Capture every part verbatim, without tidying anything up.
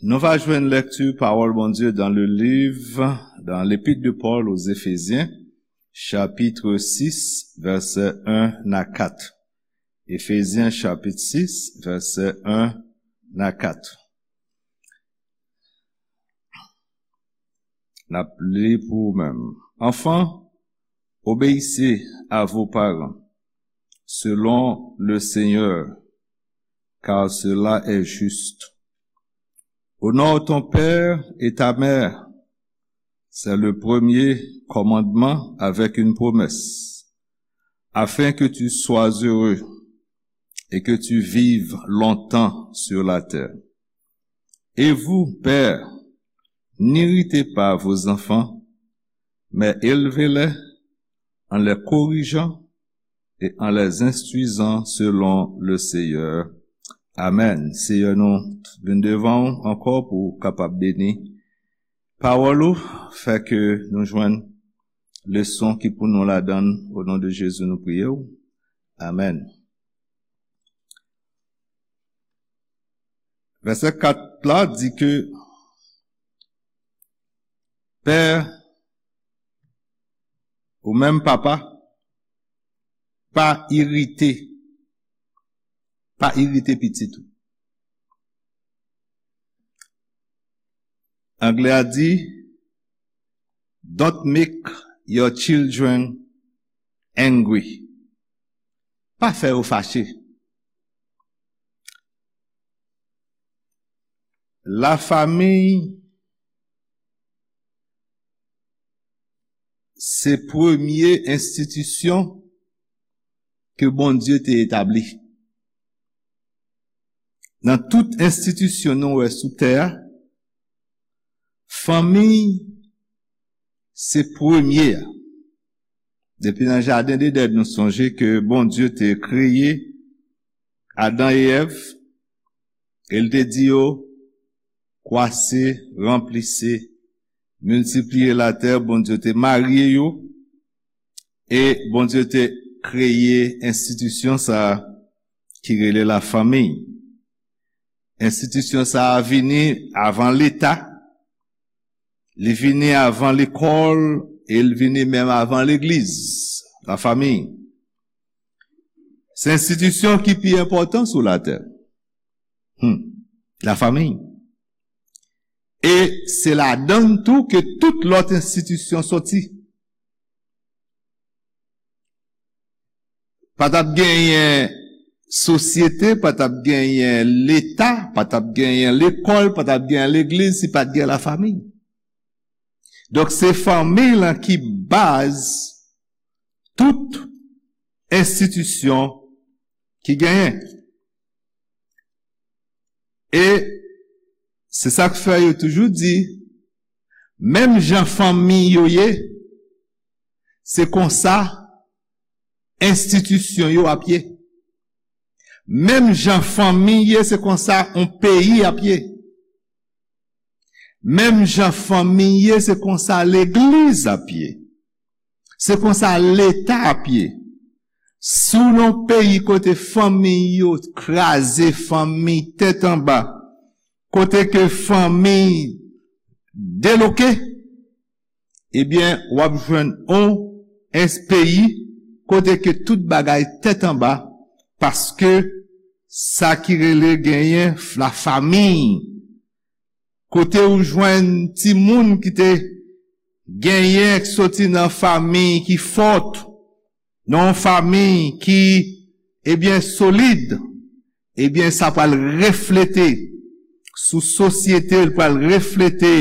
Nou va jwenn lekti pawol Bondye dan le liv, dan l'épître de Paul aux Éphésiens, chapitre six, verset un à quatre. Éphésiens chapitre six, verset un à quatre. N ap li pou ou menm. Enfants, obéissez à vos parents, selon le Seigneur, car cela est juste. Honore ton père et ta mère, c'est le premier commandement avec une promesse, afin que tu sois heureux et que tu vives longtemps sur la terre. Et vous, pères, n'irritez pas vos enfants, mais élevez-les en les corrigeant et en les instruisant selon le Seigneur. Amen. Seyè, nou vin devan w ankò pou w kapab beni pawòl ou, fè ke nou jwenn leson ki pou nou ladan l. O non de Jezi, nou priye w. Amen. Vèsè kat la di ke pè ou menm papa, pa irite, pa irite pitit ou. Anglè a di, "Don't make your children angry." Pa fè yo fache. Lafanmi se premye enstitisyon ke Bondye te etabli. Nan tout enstitisyon nou wè sou tè a, fanmi se premye a. Depi nan jaden Edenn, nou sonje ke Bondye te kreye Adan e Èv, e l te di yo, "Kwase, ranplise, miltipliye latè." Bondye te marye yo, e Bondye te kreye enstitisyon sa a ki rele lafanmi. Enstitisyon sa a vini avan Leta, li vini avan lekòl, e l vini menm avan legliz, lafanmi. Se enstitisyon ki pi enpòtan sou latè. Hmm. Lafanmi. E se ladan l tou ke tout lòt enstitisyon soti. Pa t ap genyen sosyete, pa t ap genyen Leta, pa t ap genyen lekòl, pa t ap genyen legliz si pa t gen lafanmi. Donk, se fanmi lan ki baz tout enstitisyon ki genyen. E se sa k fè yo toujou di, menm jan fanmi yo ye, se konsa enstitisyon yo ap ye. Menm jan fanmi ye, se konsa yon peyi ap ye. Menm jan fanmi ye, se konsa legliz ap ye. Se konsa Leta ap ye. Si w nan yon peyi kote fanmi yo kraze, fanmi tèt anba, kote ke fanmi deloke, ebyen, w ap jwenn yon es-, peyi kote ke tout bagay tèt anba, paske sa ki rele genyen lafanmi, kote ou jwenn timoun ki te genyen, ki soti nan fanmi ki fòt, nan yon fanmi ki, ebyen, solid, ebyen, sa pral reflete sou sosyete, l pral reflete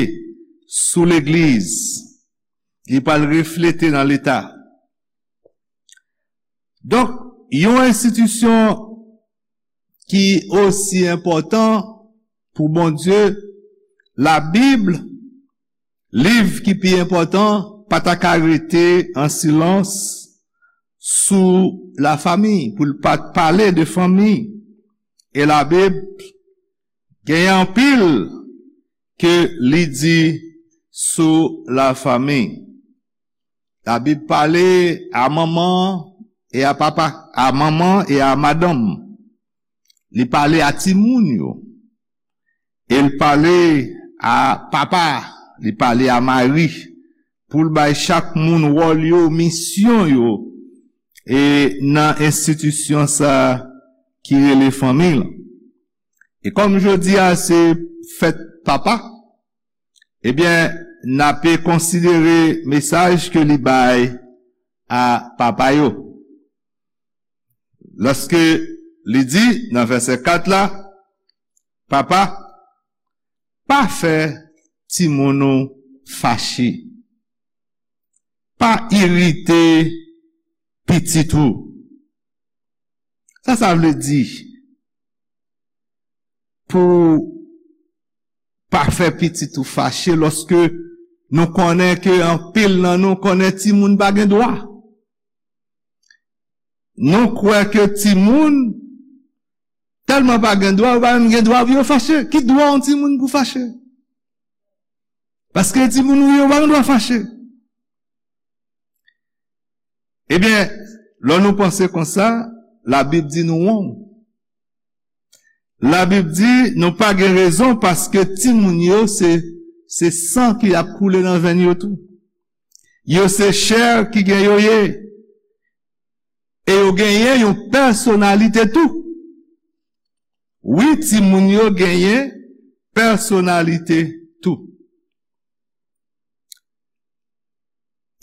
sou legliz, li pral reflete nan Leta. Donk, yon enstitisyon ki osi enpòtan pou Bondye, Labib, liv ki pi enpòtan, pa ta ka rete an silans sou lafanmi, pou l pa t pale de fanmi. E Labib genyen anpil ke li di sou lafanmi. Labib pale a manman e a papa, a manman e a madanm. Li pale a timoun yo. E l pale a papa, li pale a mari, pou l bay chak moun wòl yo, misyon yo, e nan enstitisyon sa a ki rele fanmi l. E kòm jodi a se fèt papa, ebyen, n ape konsidere mesaj ke li bay a papa yo. Lòske li di nan vèsè kat la, papa, pa fè timoun ou fache. Pa irite pitit ou. Sa sa vle di pou pa fè pitit ou fache lòske nou konnen ke anpil nan nou konnen timoun pa gen dwa. Nou kwè ke timoun tèlman pa gen dwa, yo pa menm gen dwa pou yo fache. Ki dwa yon timoun pou fache? Paske timoun ou ye, yo pa gen dwa fache. Ebyen, lè nou panse konsa, Labib di nou wrong. Labib di nou pa gen rezon paske timoun yo se, se san ki ap koule nan venn yo tou. Yo se chè ki gen yo ye. E yo genyen yon pèsonalite tou. Wi, timoun yo genyen pèsonalite tou.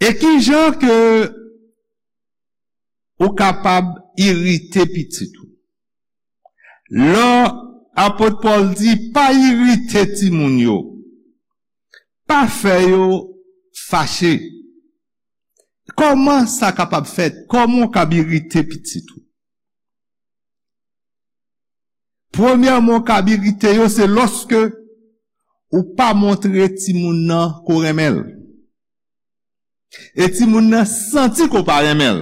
E ki jan ke ou kapab irite pitit ou? Lè apot Pòl di pa irite timoun yo, pa fè yo fache. Kòman sa kapab fèt? Kòman w kab irite pitit ou? Premyèman, w kab irite yo, se lòske ou pa montre timoun nan ke w renmen l. E timoun nan santi ke w pa renmen l.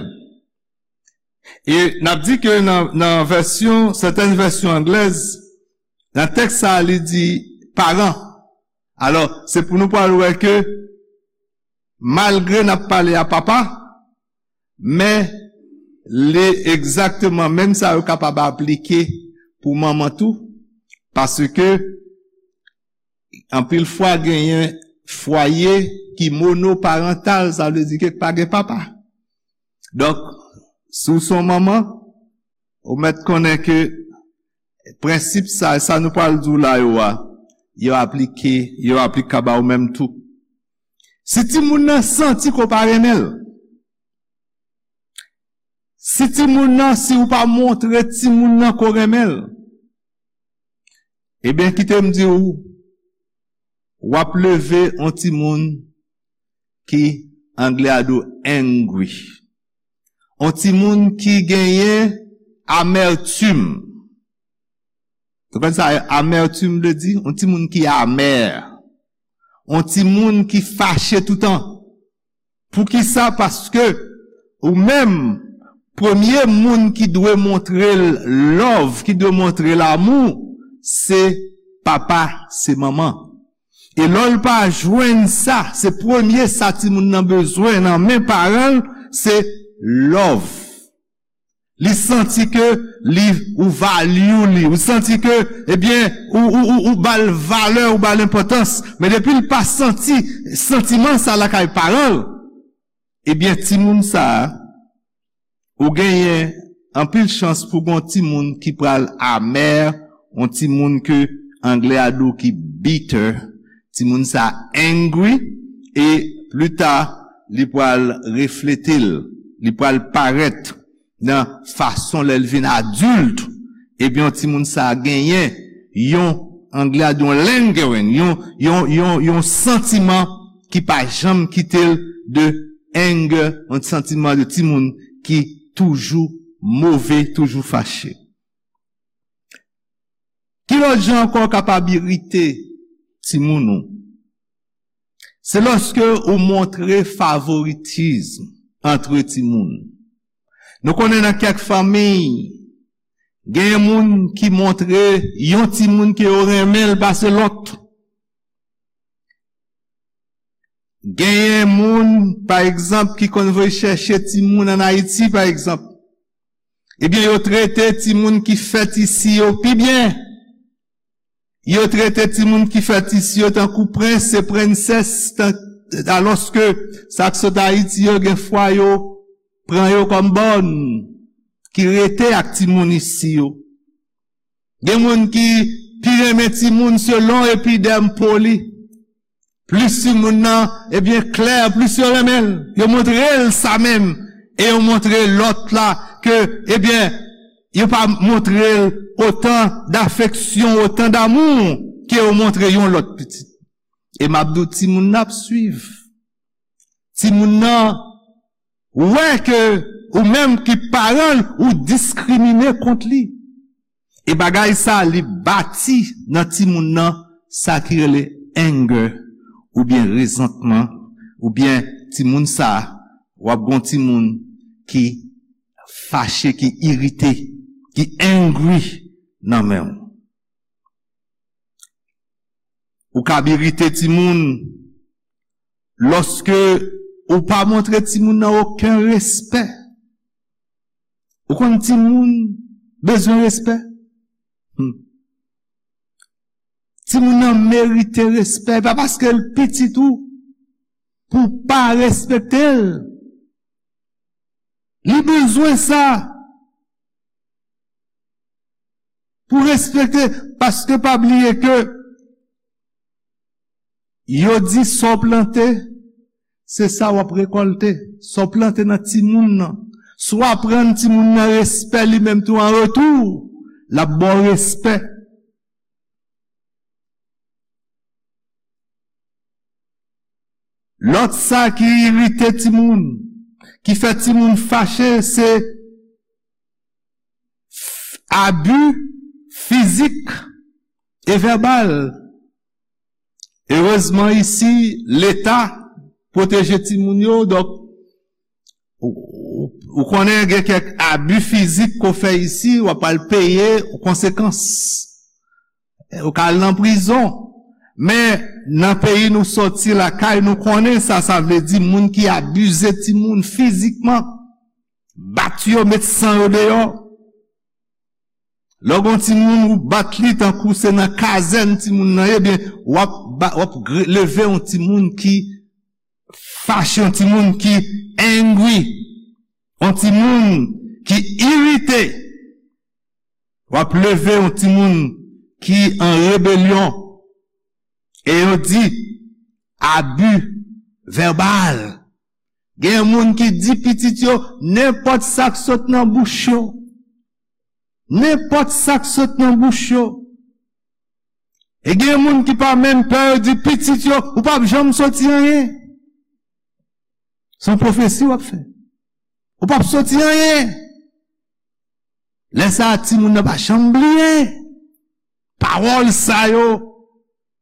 E n ap di ke nan, nan vèsyon, sètèn vèsyon anglèz, nan tèks sa a, li di paran. Alò, se pou nou pral wè ke malgre n ap pale a papa, men li egzakteman menm sa yo kapab aplike pou manman tou, paske anpil fwa genyen fwaye ki monoparantal, sa vle di ke pa gen papa. Donk, si w se yon manman, ou mèt konnen ke prensip sa, sa nou pral di w la yo a, yo aplike, yo aplikab a ou menm tou. Si timoun nan santi ke w pa renmen l, si timoun nan, si w pa montre timoun nan ke w renmen l, ebyen, kite m di w, w ap leve yon timoun ki anglè a di w angry. Yon timoun ki genyen amètim. Ou konn sa amètim vle di? Yon timoun ki amè. Yon timoun ki fache toutan. Poukisa? Paske ou menm, premye moun ki dwe montre l love, ki dwe montre l amou, se papa, se manman. E lè l pa jwenn sa, se premye sa timoun nan bezwen nan men paran l, se love. Li santi ke li, ou value li, ou santi ke, ebyen, ou, ou, ou, ou ba l valè, ou ba l enpòtans. Men depi l pa santi santiman sa lakay paran l, ebyen, timoun sa a, ou genyen anpil chans pou gon timoun ki pral amè, yon timoun ke anglè a di w ki bitter, timoun sa angry, e pli ta, li pral reflete l, li pral parèt nan fason lè l vin adilt, ebyen, yon timoun sa genyen yon, anglè a di yon lingering, yon, yon, yon, yon santiman ki pa janm kite l de anger, yon santiman de timoun ki toujou move, toujou fache. Ki lòt jan ankò w kapab irite timoun ou? Se lòske ou montre favoritism antre timoun. Nou konnen nan kèk fanmi, genyen moun ki montre yon timoun ke yo renmen l pase lòt. Genyen moun, pa egzanp, ki konn voye chèche timoun ann Ayiti, pa egzanp. Ebyen, yo trete timoun ki fèt isi yo pi byen. Yo trete timoun ki fèt isi yo tankou prens e prensès, tan-, alòske sa k sot Ayiti yo gen fwa yo pran yo kòm bòn, ki rete ak timoun isi yo. Gen moun ki pi renmen timoun selon epidèm po li. Plis timoun nan, ebyen, klè, plis yo renmen l. Yo montre l sa menm. E yo montre lòt la ke, ebyen, yo pa montre l otan dafeksyon, otan damou ke yo montre yon lòt pitit. E m ap di w, timoun nan ap swiv. Timoun nan wè ke ou menm ki paran l, ou diskrimine kont li. E bagay sa, li bati nan timoun nan sa ki rele anger, oubyen rezantman, oubyen timoun sa, w ap gon timoun ki fache, ki irite, ki angry nan men w. Ou kab irite timoun lòske ou pa montre timoun nan okenn respè. Ou konn timoun bezwen respè? Hmm. Timoun nan merite respè. E pa paske l pitit ou pou w pa respekte l. Li bezwen sa. Pou respekte, paske pa bliye ke yo di sa w plante, se sa w ap rekòlte. Sa w plante nan timoun nan. Si w aprann timoun nan respè, li menm tou an retou, l ap ba w respè. Lòt sa ki irite timoun, ki fè timoun fache, se f-, abi fizik e vèbal. Erezman, isi, Leta pwoteje timoun yo, donk, ou, ou, ou konnen gen kèk abi fizik ke w fè isi, w ap al peye konsekans. Ou ka al nan prizon. Men, nan peyi nou soti, lakay nou, konnen sa, sa vle di moun ki abize timoun fizikman, bat yo, met san yo deyò. Lè w gon timoun, ou bat li tankou se nan kazèn timoun nan ye, ebyen, w ap ba-, w ap gre-, leve yon timoun ki fache, yon timoun ki angry, yon timoun ki irite. W ap leve yon timoun ki an rebelyon. E yo di, abi vèbal. Gen moun ki di pitit yo nenpòt sa k sot nan bouch yo. Nenpòt sa k sot nan bouch yo. E gen moun ki pa menm pè, yo di pitit yo, ou p ap janm soti anyen. Se yon pwofesi w ap fè. Ou p ap soti anyen. Lè sa a, timoun nan pa janm bliye pawòl sa yo.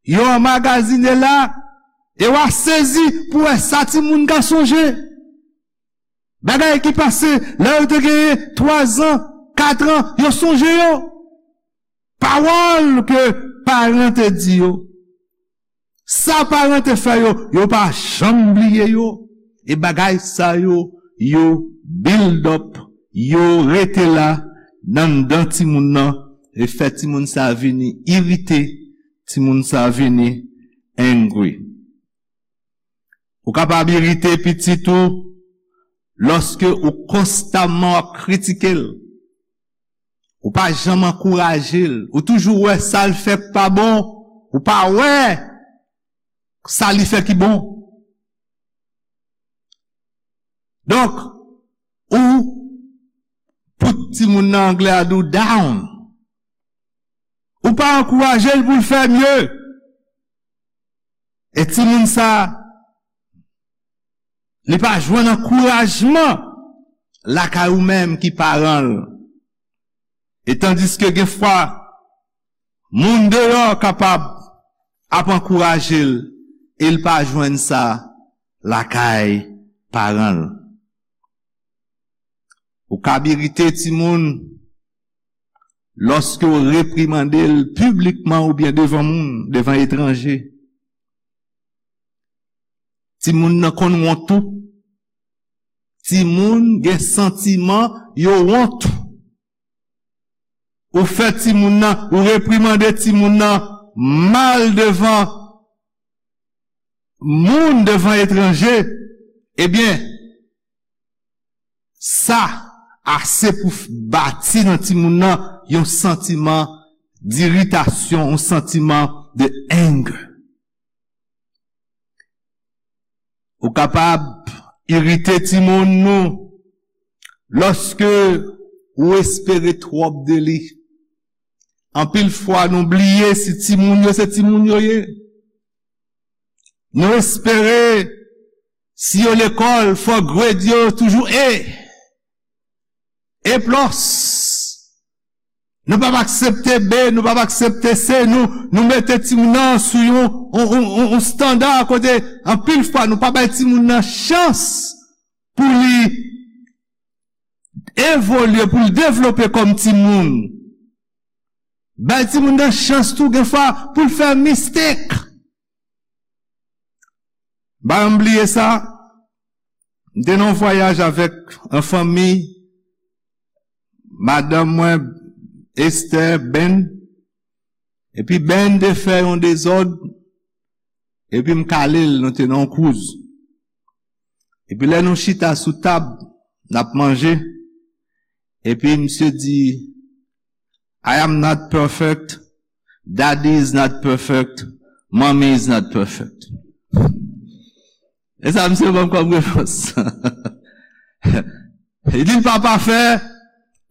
Yo anmagazine la, e w a sezi pou wè sa timoun ka sonje. Bagay ki pase lè yo te genyen twazan, katran, yo sonje yo. Pawòl ke paran te di yo. Sa paran te fè yo, yo pa janm bliye yo. E bagay sa yo, yo build up, yo rete la anndan timoun nan, e fè timoun sa vini irite, timoun sa vini angry. Ou kapab irite pitit ou lòske ou konstamman w ap kritike l. Ou pa janm ankouraje l. Ou toujou wè sa l fè k pa bon. Ou pa wè sa li fè ki bon. Donk, ou put timoun nan, anglè a di w, down. Ou pa ankouraje l pou l fè mye. E timoun sa, li pa jwenn ankourajman lakay ou menm ki paran l. E tandiske gen fwa, moun deyò kapab ap ankouraje l, e l pa jwenn sa lakay paran l. Ou kab irite timoun lòske w reprimande l piblikman oubyen devan moun, devan etranje. Timoun nan konn wont tou. Timoun gen santiman yo wont. Ou fè timoun nan, ou reprimande timoun nan mal devan moun, devan etranje, ebyen, sa ase pou f-, bati nan timoun nan yon santiman diritasyon, yon santiman de anger. Ou kapab irite timoun nou lòske ou espere twòp de li. Anpil fwa nou bliye si timoun yo se timoun yo ye. Nou espere si yo lekòl, fò grade yo toujou A, A plus. Nou p ap aksepte B, nou p ap aksepte C, nou, nou mete timoun nan sou yon, yon, yon, yon, yon standa kote anpil fwa nou pa bay timoun nan chans pou li evolye, pou l devlope kòm timoun. Bay timoun nan chans tou, gen fwa, pou l fè mistake. M pa janm bliye sa. M te nan yon vwayaj avèk yon fanmi, madanm mwen, Esther, Ben. Epi Ben te fè yon dezòd, epi m kale l, nou te nan yon cruise. Epi lè nou chita sou tab, n ap manje, epi misye di, "I am not perfect, daddy is not perfect, mommy is not perfect." E sa misye ban m kòm repons. Li di l pa pafè,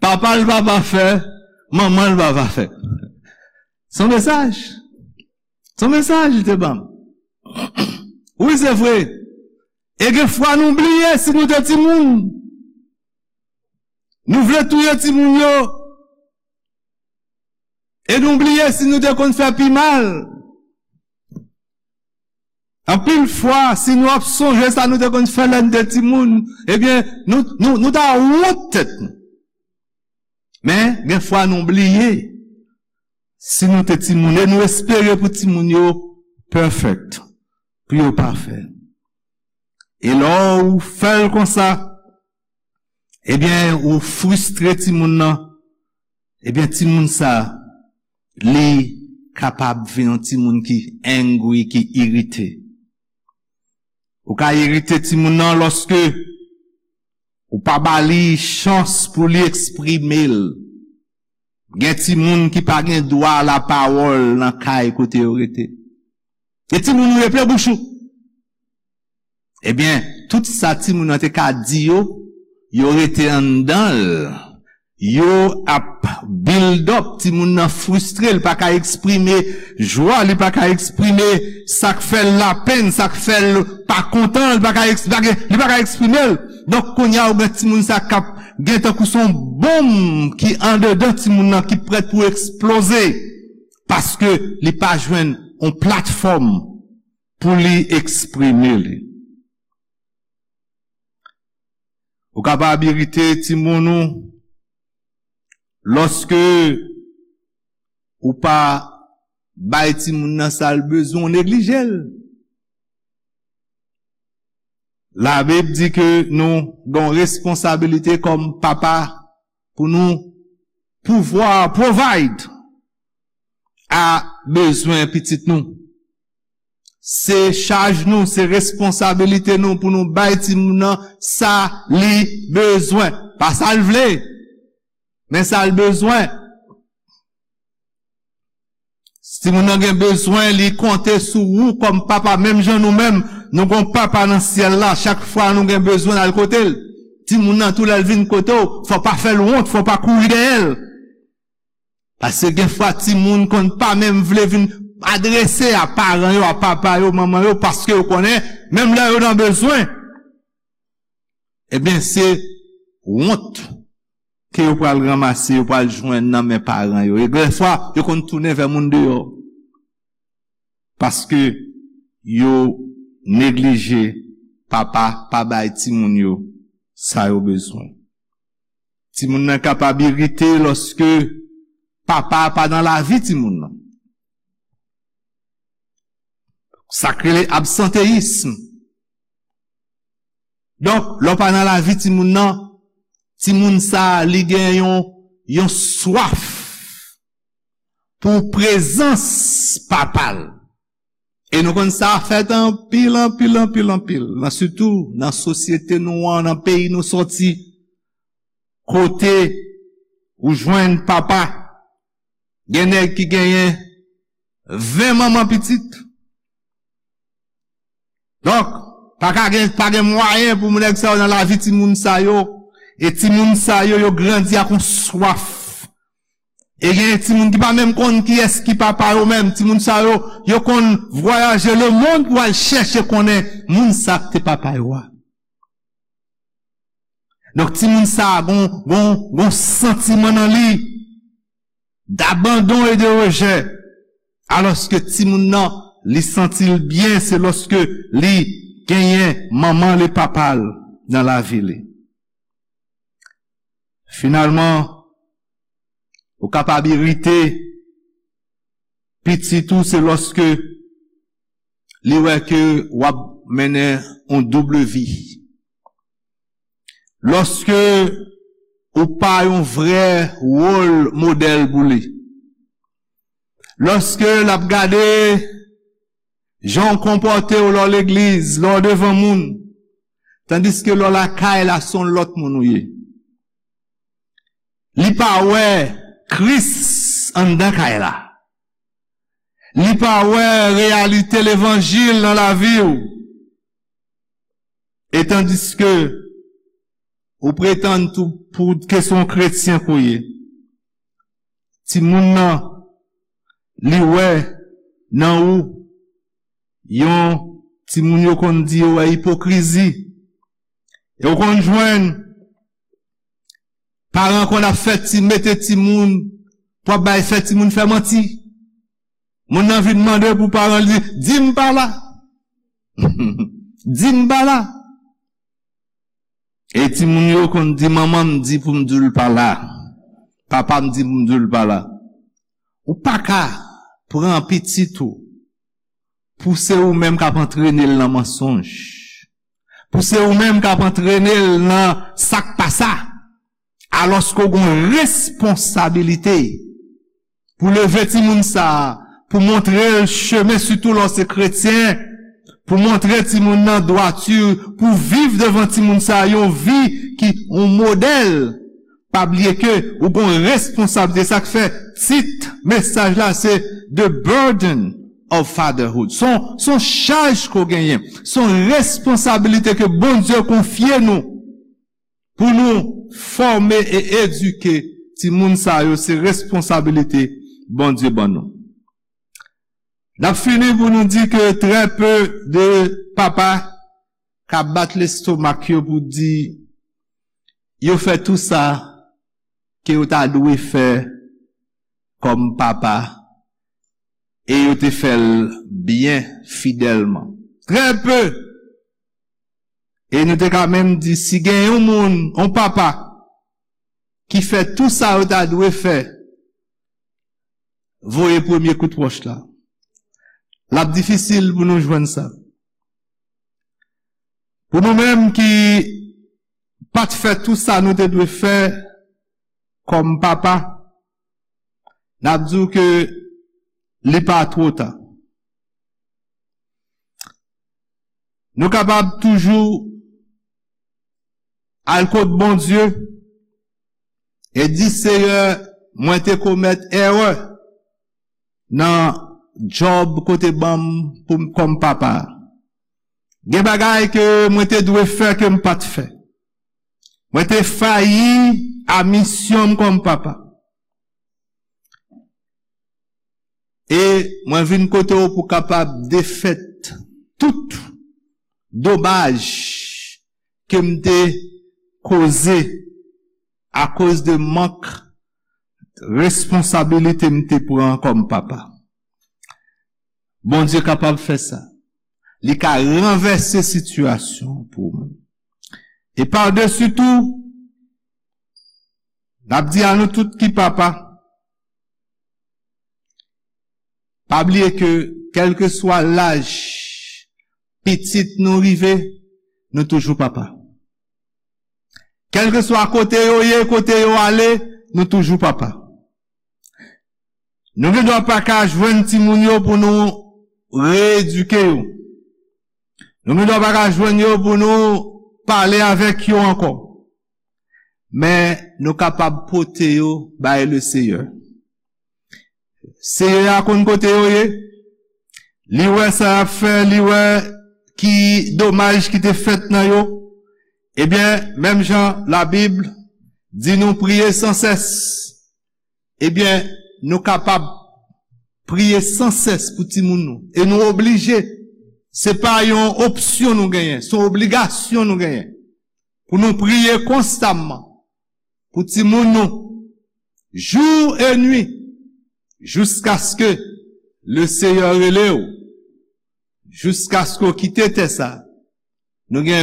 papa l pa pafè, manman l pa pafè. Se yon mesaj. Se yon mesaj li te ban m. Wi, se vre. E gen fwa nou bliye si nou te timoun. Nou vle touye timoun yo. E nou bliye si nou te konn fè pi mal. Anpil fwa, si nou ap sonje sa nou te konn fè lè n te timoun, ebyen, nou, nou, nou ta wont tèt nou. Men, gen fwa nou bliye si nou te timoun, e nou espere pou timoun yo perfect, pou yo pafè. E lè w fè l konsa, ebyen, ou fristre timoun nan, ebyen, timoun sa, li kapab vin yon timoun ki angry, ki irite. Ou ka irite timoun nan lòske ou pa ba li chans pou li eksprime l. Gen timoun ki pa gen dwa lapawòl nan kay kote yo rete. E timoun ou ye plen bouch ou. Ebyen, tout sa timoun nan te ka di yo, yo rete anndan l. Yo ap build up, timoun nan fristre, li pa ka eksprime jwa, li pa ka eksprime sa k fè l lapenn, sa k fè l pa kontan, li pa ka eks-, li pa gen, li pa ka eksprime l. Donk, kounye a, ou gen timoun sa k ap gen tankou se yon bonm ki andedan timoun nan, ki prèt pou eksploze, paske li pa jwenn yon platfòm pou li eksprime li. Ou kapab irite timoun ou lòske ou pa bay timoun nan sa l bezwen, ou neglije l. Labib di ke nou gen yon responsabilite kòm papa pou nou pouvwa provide a bezwen pitit nou. Se chaj nou, se responsabilite nou pou nou bay timoun nan sa li bezwen. Pa sa l vle, men sa l bezwen. Si timoun nan gen bezwen, li konte sou ou kòm papa, menm jan nou menm, nou gon papa nan syèl la, chak fwa nou gen bezwen, n al kote l. Timoun nan tou lè l vin kote w, fò pa fè l wont, fò pa kouri dèyè l. Paske gen fwa timoun konn pa menm vle vin adrese a paran yo, a papa yo, manman yo, paske yo konnen, menm lè yo nan bezwen, ebyen, se wont ke yo pral ranmase, yo pral jwenn nan men paran yo. E gen fwa, yo konn tounen vè moun deyò. Paske yo neglije papa pa bay timoun yo sa yo bezwen. Timoun nan kapab irite lòske papa pa nan lavi timoun nan. Sa k rele absanteyism. Donk, lè w pa nan lavi timoun nan, timoun sa a, li gen yon, yon swaf pou prezans papa l. E nou konn sa fèt anpil, anpil, anpil, anpil. Nan, sitou nan sosyete nou an, nan peyi nou sòti, kote ou jwenn papa, gen nèg ki genyen ven manman pitit. Donk, pa ka gen, pa gen mwayen pou nèg sa yo nan lavi timoun sa yo. E timoun sa yo, yo grandi ak yon swaf. E gen timoun ki pa menm konn kiyès ki papa yo menm. Timoun sa yo, yo konn vwayaje lemonn pou al chèche konnen moun sa k te papa yo a. Donk, timoun sa a gon, gon, gon santiman nan li d'abandon e de rejè. Alòske timoun nan, li santi l byen, se lòske li genyen manman l e papa l nan lavi li. Finalman, ou kapab irite pitit ou, se lòske li wè ke w ap mennen yon doub vi. Lòske ou pa yon vrè wòl modèl pou li. Lòske l ap gade jan w konpòte w lè w legliz, lè w devan moun, tandiske lè w lakay la, se yon lòt moun ou ye. Li pa wè Kris anndan kay la. Li pa wè reyalite levanjil nan lavi w. E tandiske ou pretann tou pou ke se yon kretyen ke w ye, timoun nan, li wè nan ou yon timoun yo konn di yo wè ipokrizi. E ou konn jwenn paran konn ap fè ti, mete timoun, pou ap bay fè timoun fè manti. Moun nan vin mande pou paran l di, "Di m pa la." "Di m pa la." E timoun yo konn di, "Manman m di pou m di l pa la. Papa m di pou m di l pa la." Ou pa ka pran pitit ou pou se ou menm k ap antrene l nan mansonj, pou se ou menm k ap antrene l nan sa k pa sa, alòske w gen yon responsabilite pou leve timoun sa a, pou montre l chemen, sitou lè w se kretyen, pou montre timoun nan dwati, pou viv devan timoun sa a yon vi ki yon modèl. Pa bliye ke ou gen yon responsablite. Sa k fè tit mesaj la se The Burden of Fatherhood. Se yon, se yon chaj ke w genyen. Se yon responsablite ke Bondye konfye nou pou nou fòme e edike timoun sa yo. Se responsablite Bondye ban nou. N ap fini pou nou di ke trè pe de papa ka bat lestomak yo pou di yo fè tou sa ke yo ta dwe fè kòm papa, e yo te fè l byen fidèlman. Trè pe. E nou te ka menm di, si gen yon moun, yon papa, ki fè tou sa yo ta dwe fè, voye premye kout wòch la. L ap difisil pou nou jwenn sa. Pou nou menm ki pa t fè tou sa nou te dwe fè kòm papa, n ap di w ke li pa twò ta. Nou kapab toujou al kot Bondye e di, Seyè, mwen te komèt erè nan djòb ke w te ban m pou m kòm papa. Gen bagay ke mwen te dwe fè ke m pa t fè. Mwen te fayi a misyon m kòm papa. E mwen vin kote w pou kapab defèt tout domaj ke m te koze akoz de mank responsabilite m te pran kòm papa. Bondye kapab fè sa. Li ka ranvèse sitiyasyon pou ou menm. E padesi tou, n ap di a nou tout ki papa, pa bliye ke kèlkeswa laj pitit nou rive, nou toujou papa. Kèlkeswa kote yo ye, kote yo ale, nou toujou papa. Nou gen dwa pa ka jwenn timoun yo pou nou reyedike yo. Nou gen dwa pa ka jwenn yo pou nou pale avèk yo ankò. Men nou kapab pote yo bay Leseyè. Seyè a konn kote yo ye. Li wè sa y ap fè, li wè ki domaj ki te fèt nan yo. Ebyen, menm jan Labib di nou priye san sès. Ebyen, nou kapab priye san sès pou timoun nou. E nou oblije. Se pa yon opsyon nou genyen, se yon obligasyon nou genyen. Pou nou priye konstamman pou timoun nou, jou e nwi, jiskaske Leseyè rele w, jiskaske w kite tè sa. Nou gen